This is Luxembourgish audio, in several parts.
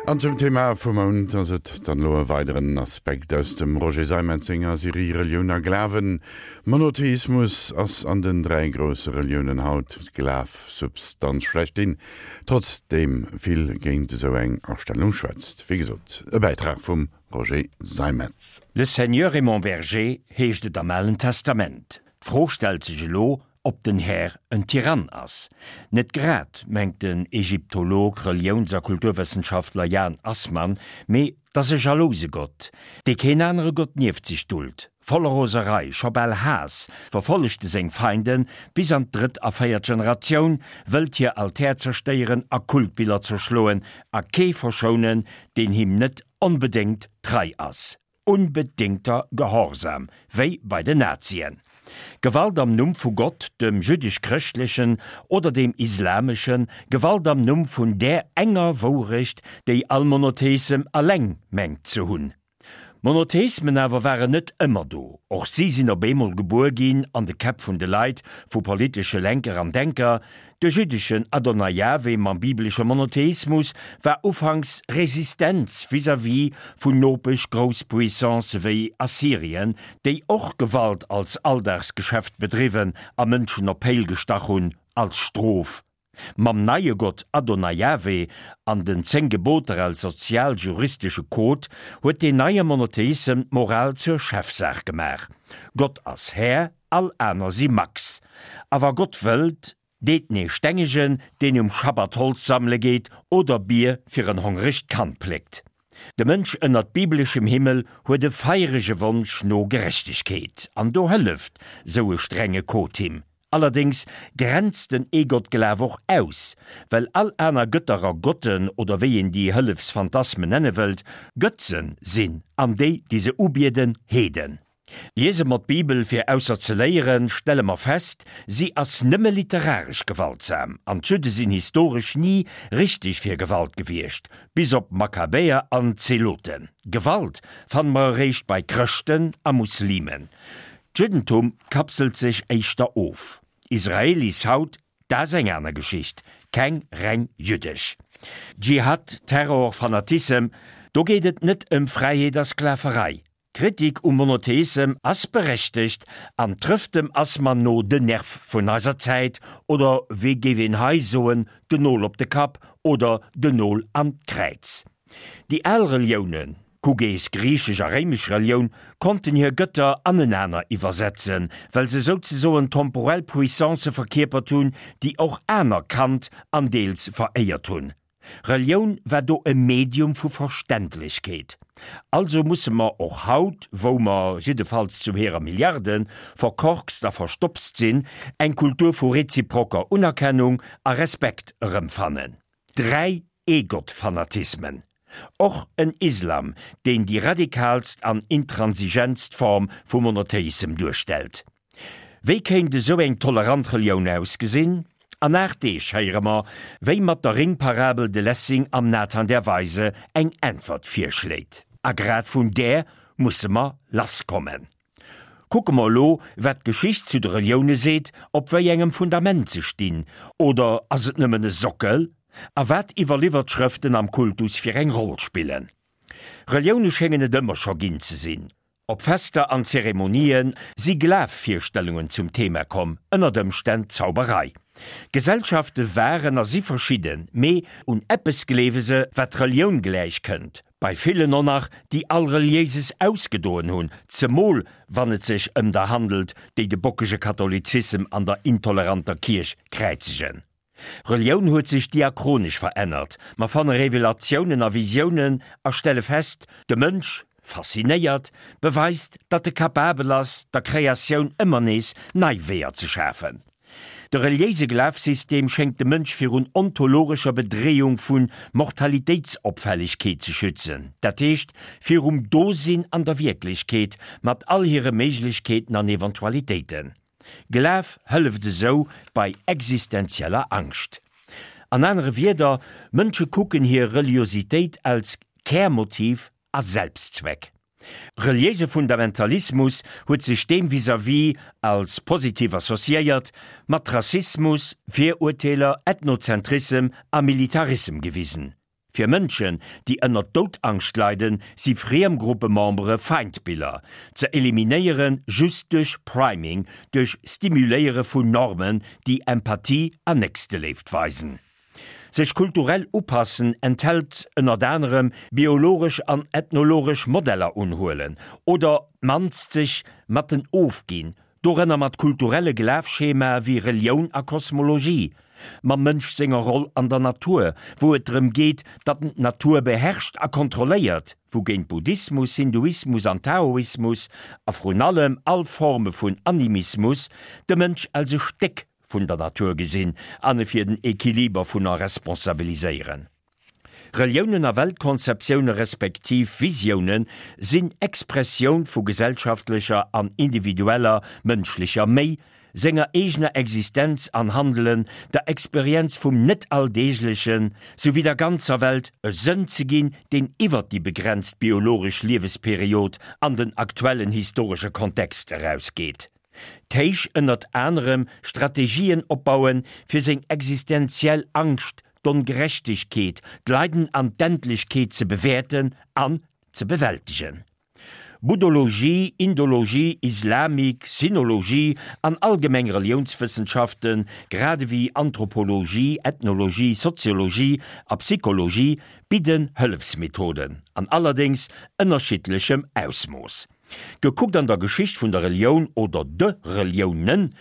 An zum Thema vum Mount ass et dann elo e weideren Aspekt aus dem Roger Seimetz senger Serie Relioun a Glawen. Monotheismus ass an den 3 grousse Reliounen haut d'Glafsubstanz schlechthin, trotzdeem vill géint esou eng Astellung schwätzt. Wéi gesot, e Bäitrag vum Roger Seimetz. Le Seigneur est mon berger heescht et am Alen Testament. D'Fro stellt sech elo, ob den Här en Tyrann ass. Net grad, mengt den Ägyptolog, Reliouns a Kulturwëssenschaftler Jan Assmann, mee 't ass e jalouse Gott, dee keen anere Gott nieft sech duld. Voller Roserei, scho bal Haass, verfollegt e seng Feinden bis an d'drëtt a véiert Generatioun, wëllt hir Altär zerstéieren a Kultbiller zerschloen a kee verschounen, deen him net onbedéngt trei ass. Unbedingter Gehorsam, wéi bei den Nazien. Gewalt am Numm vu Gott, dem jüddesch-chrëschtlechen oder dem islameschen, Gewalt am Numm vun där enger Wourecht, déi all Monotheissem alleng mengt ze hunn. Monotheismen awer waren net ëmmer do, och si sinn op eemol gebuer ginn an de Käpp vun de Leit, vu politesche Lenker an Denker, De jüddeschen Adonai Jahwe mam bibelesche Monotheismus war ufanks Resistenz vis-à-vis vun Nopesch-Grousspuissancë wéi Assyrien, déi och Gewalt als Alldagsgeschäft bedriwwen a Mënschen op Péil gestach hunn als Strof. Mam neie Gott Adonai Jahwe an den 10 Geboter als sozial-juristesche Code huet deen neie Monotheissem d'Moral zur Chefsaach gemaach. Gott ass Här, All aner si Max. A wa Gott wëllt, deet en ee stengegen, deen um Schabbat Holz sammele geet oder Bier fir en hongregt Kand pléckt. De Mënsch ënnert bibeleschem Himmel huet e feierege Wonsch no Gerechtegkeet, an do hëlleft sou e strenge Code him. Allerdéngs grenzt den Eegottglaf och aus, well all aner Gëtter a Gotten, oder wéi een déi Hëllefsphantasmen nenne wëllt, Gëtzen sinn, an déi, déi se ubieden, Heeden. Liese mer d'Bibel fir ausser ze léieren, stelle mer fest, si ass nëmme literaresch gewaltsam, an d'Judde sinn historesch ni richteg fir Gewalt gewiescht, bis op Makkabäer an Zeloten. Gewalt fanne mer eréischt bei Chrëschten a Muslimen. D'Juddentum kapselt sech éischter of. Israelis haut, dat ass eng aner Geschicht, keng reng jüddesch. Dschihad, Terror, Fanatissem, do geet et net ëm Fräiheet a Sklaverei. D'Kritik um Monotheissem ass berechtegt an trëfft dem Assmann no den Nerv vun eiser Zäit, oder wéi géif een hei soen, den Nol op de Kapp oder den Nol an d'Kräiz. Déi al Reliounen, kuck ees griichesch a réimesch Relioun, konnten hir Gëtter anenaner iwwersetzen, well se souzesoen temporell Puissancë verkierpert hunn, déi och aner kannt an deels veréiert hunn. Relioun war do e Medium vu Verständlechkeet. Also musse mer och haut, wou mer, jiddefalls zu hirer Milliarde, verkorkst a verstopst sinn, eng Kultur vu reziproker Unerkennung a Respekt erëmfannen. 3 Ee-Gott-Fanatismen. Och en Islam, deen déi radikalst an intransigentst Form vu Monotheissem duerstellt. Wéi kéint esou eng tolerant Relioun ausgesinn? An 8 Deeg héiere mer, wéi mat der Ringparabel de Lessing am Nathan der Weise eng Äntwert virschléit. A grad vun där musse mer lasskommen. Kucke mer elo, wat d'Geschicht zu de Relioune seet, op wéi engem Fundament se stinn, oder ass et nëmmen e Sockel? A wat iwwerliwwert Schrëften am Kultus fir eng Roll spillen. Relioune schéngen et ëmmer scho ginn ze sinn. Op Fester an Zeremonië si Glafvirstellungen zum Thema komm, ënnert Ëmstänn Zauberei. Gesellschafte waren a si verschidden, mee un eppes gleewe se, wat Relioun gläich kënnt, bei villen och nach, déi all Reliéises ausgedoen hunn, zemol wann et sech ëm der handelt, déi de bockege Katholizissem an der intoleranter Kierch kräizegen. Relioun huet sech diachronesch verännert. Mer fanne Revelatiounen a Visiounen a stelle fest, de Mënsch, faszinéiert, beweist, datt e capabel ass, der Kreatioun ëmmer nees nei Weeër ze schafen. De reliéise Glafsystem schéngt de Mënsch virun ontologescher Bedreeung vu Mortalitéitsopfällegkeet ze schützen, dat heescht virum Dosinn an der Wierklechkeet mat all hire Méiglechkeeten an Eventualitéiten. Glaf hëlleft esou bei existenzieller Angscht. An anere Wierder, Mënsche kucken hir Reliositéit als Kärmotiv a Selbstzweck. Reliéise Fundamentalismus huet sech deem vis-à-vis als positiv associéiert, mat Rassismus, Virurteeler, Ethnozentrissem a Militarissem gewisen. Fir Mënschen, déi ënner Doudangscht leiden, si friem Gruppemembere Feindbiller, ze eliminéiere just duerch Priming, duerch Stimuléiere vun Normen, déi Empathie an Nächsteléift weisen. Sech kulturell upassen enthält ënnert anerem biologesch an ethnologesch Modeller unhuelen oder d'mannst sech mat den ofginn, dorënner mat kulturelle Glafschemae wéi Relioun a Kosmologie, mam Mënsch senger Roll an der Natur, wou et drëm geet, datt en d'Natur beherrscht a kontrolléiert, wougéint Buddhismus, Hinduismus an Taoismus, a vrun allem all Forme vun Animismus, de Mënsch als e Stéck vun der Natur gesinn an e fir den Equiliber vun er responsabiliséieren. Reliounen a Weltkonzeptioune respektiv Visioune sinn Expressioun vu gesellschaftlecher an individueller mënschlecher Méi, senger eegener Existenz an Handelen, der Experienz vum Net-Alldeeglechen, souwéi der ganzer Welt e Sënn ze ginn, deen iwwer déi begrenzt biologesch Liewesperiod an den aktuellen historesche Kontext erausgeet. D'Héich ënnert anerem Strategien opbauen, fir seng existenziell Angscht, d'Ongerechtegkeet, d'Leiden an d'Endlechkeet ze bewäerten an ze bewältegen. Buddhologie, Indologie, Islamik, Sinologie an allgemeng Reliounswëssenschaften, grad ewéi Anthropologie, Ethnologie, Soziologie a Psychologie bidden Hëllefsmethoden, an allerdéngs ënnerschiddlechem Ausmooss. Gekuckt an der Geschicht vun der Relioun oder de Reliounen,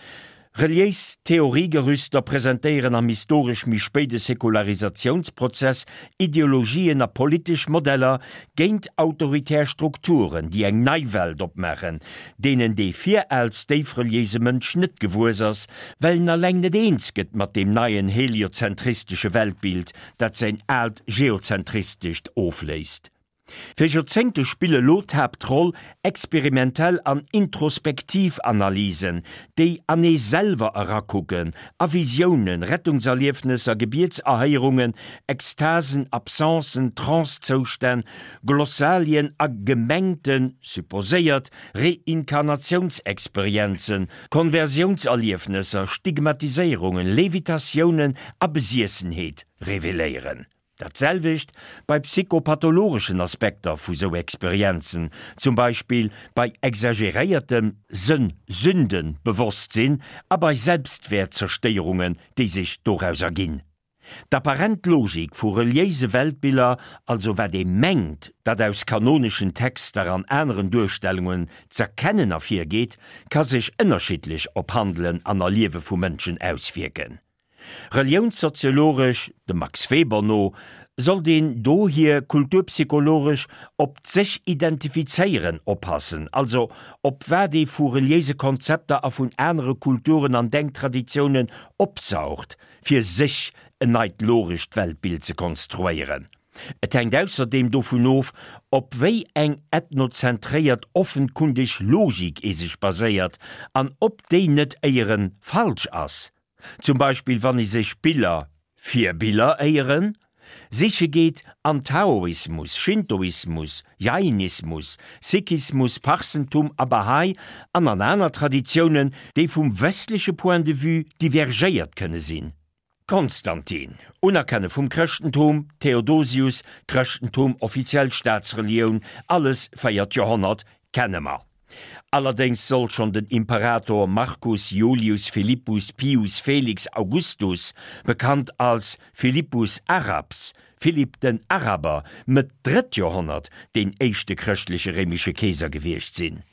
reliéis Theoriegerüster presentéieren am historesch méi spéide Säkularisatiounsprozess Ideologien a politesch Modeller géint autoritär Strukturen, déi eng nei Welt opmaachen, deenen dee viraals déifreliéise Mënsch net gewuess ass, well en alleng net eens gëtt mat deem neien heliozentristesche Weltbild, dat säin aalt geozentristescht ofléist. Fir Joerzéngte spille lo d'Haaptroll experimentell an introspektiv Analysen, déi an ee selwer erakucken, a Visiounen, Rettungserliefnesser, Gebietserhéierungen, Extasen, Absencen, Trancezoustänn, Glossalien a gemengten, supposéiert, Reinkarnatiounsexperienzen, Konversiounserliefnesser, Stigmatiséierungen, Levitatiounen a Besiessenheet reveléieren. Dat selwecht bei psychopathologeschen Aspekter vu sou Experienzen, zum Beispill bei exageréiertem Sënn-Sünden-Bewosstsinn a bei Selbstwäertzerstéierungen, déi sech doraus erginn. D'apparent Logik vu reliéise Weltbiller, also wat ee mengt, dat aus kanoneschen Texter an aneren Duerstellungen z'erkennen ervirgeet, ka sech ënnerschiddlech op Handelen an Erliewe vu Mënschen auswierken. Reliounssoziologesch, dem Max Weber no, sollt een dohier kulturpsychologesch op d'Sech-Identifizéieren oppassen, also op wat ee vu reliéise Konzepter a vun anere Kulturen an Denktraditiounen opsaugt, fir sech en neit logescht Weltbild ze konstruéieren. Et hänkt ausserdeem dovun of, op wéi eng ethnozentréiert offenkundeg Logik ee sech baséiert an ob déi net éieren falsch ass. Zum Beispill wann ee sech Biller, Virbiller éieren, siche geet an Taoismus, Shintoismus, Jainismus, Sikhismus, Parsentum a Bahá'í an an aner Traditiounen, déi vum westleche Point de vue divergéiert kënne sinn. Konstantin, Unerkenne vum Chrëschtentum, Theodosius, Chrëschtentum offiziell Staatsrelioun, alles véiert Joerhonnert, kenne mer. Allerdéngs soll schonn den Imperator Marcus Iulius Philippus Pius Felix Augustus, bekannt als Philippus Arabs, Philipp den Araber, Mëtt drëtt Joerhonnert, deen éischte chrëschtleche réimesche Keeser gewiescht sinn.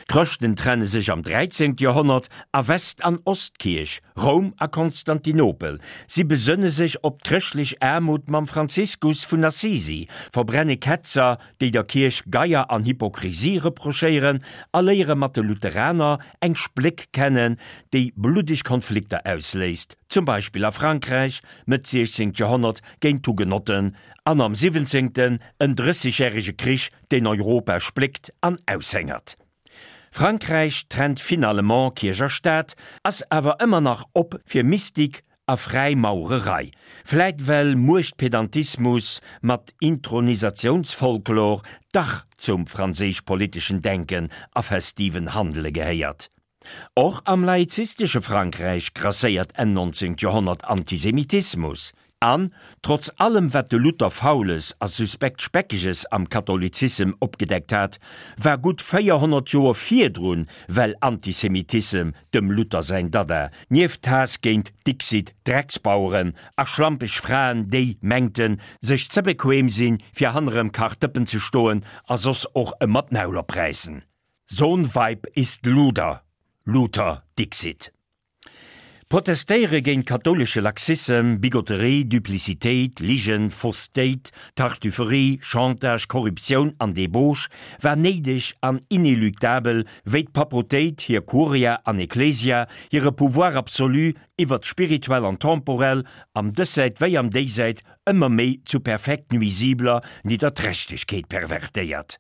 D'Chrëschten trenne sech am 13. Joerhonnert a West an Ostkierch, Roum a Konstantinopel. Si besënne sech op d'chrëschtlech Aarmut mam Franziskus vun Assisi, verbrenne Ketzer, déi der Kierch Geier an Hypokrisie reprochéieren, a léiere mat de Lutheraner eng Spléck kennen, déi bluddeg Konflikter ausléist, zum Beispill a Frankräich, Mëtt 16. Joerhonnert géint d'Hugenotten an am 17. en Drëssegjärege Krich, deen Europa spléckt an aushéngert. Frankräich trennt finalement Kierch a Staat, ass awer ëmmer nach op fir Mystik a Fräimaurerei, vläit well Muechtpedantismus mat Intronisatiounsfolklor dach zum franséisch-politeschen Denken a festiven Handele gehéiert. Och am laizistesche Frankräich grasséiert Enn 19. Joerhonnert Antisemitismus. An, trotz allem wat de Luther Faules a suspekt Speckeges am Katholizissem opgedeckt hat, war gutt 400 Joer virdrun well Antisemitissem dem Luther säin Dada, nieft Haass géint dixit Drecksbaueren a schlampeg Fraen déi mengten sech ze bequem sinn fir hannerem Kachdëppen ze stoen a soss och ëmmer d'Maul opräissen. So'n Weib ist Luder, Luther dixit. Protestéiere géint kathoulesche Laxissem, Bigotterie, Duplicitéit, Ligen, Faussetéit, Tartufferie, Chantage, Korruptioun an Débauche war néideg an inéluctabel, wéi d'Papautéit hir Curia an Ecclesia hire Pouvoir absolu iwwert d'Spirituell an Temporell am Dëssäit wéi am Déisäit ëmmer méi zu perfekt nuisibler Nidderträchtegkeet pervertéiert.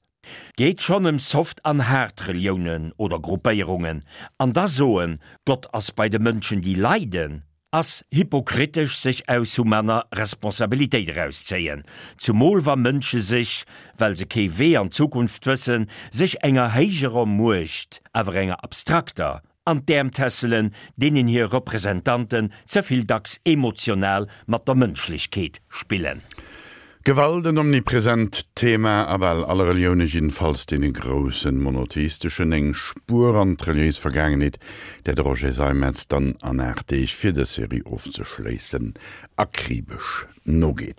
Geet schonn ëm soft an haart Reliounen oder Gruppéierungen, an da soen, Gott ass bei de Mënschen déi leiden, ass hypokritesch sech aus humaner Responsabilitéit erauszéien, zumol wa Mënsche sech, well se kee Wee an d'Zukunft wëssen, sech enger héijerer Muecht, awer enger abstrakter, an d'Äerm tässelen, deenen hir Representanten ze vill dacks emotional mat der Mënschlechkeet spillen. Gewalt, en omnipresent Thema a bal alle Relioune, jiddefalls deene groussen monotheisteschen. Eng Spuer an d'reliéis Vergaangenheet, där de Roger Seimetz dann an 8 Deeg, fir dës Serie ofzeschléissen, akribesch nogeet.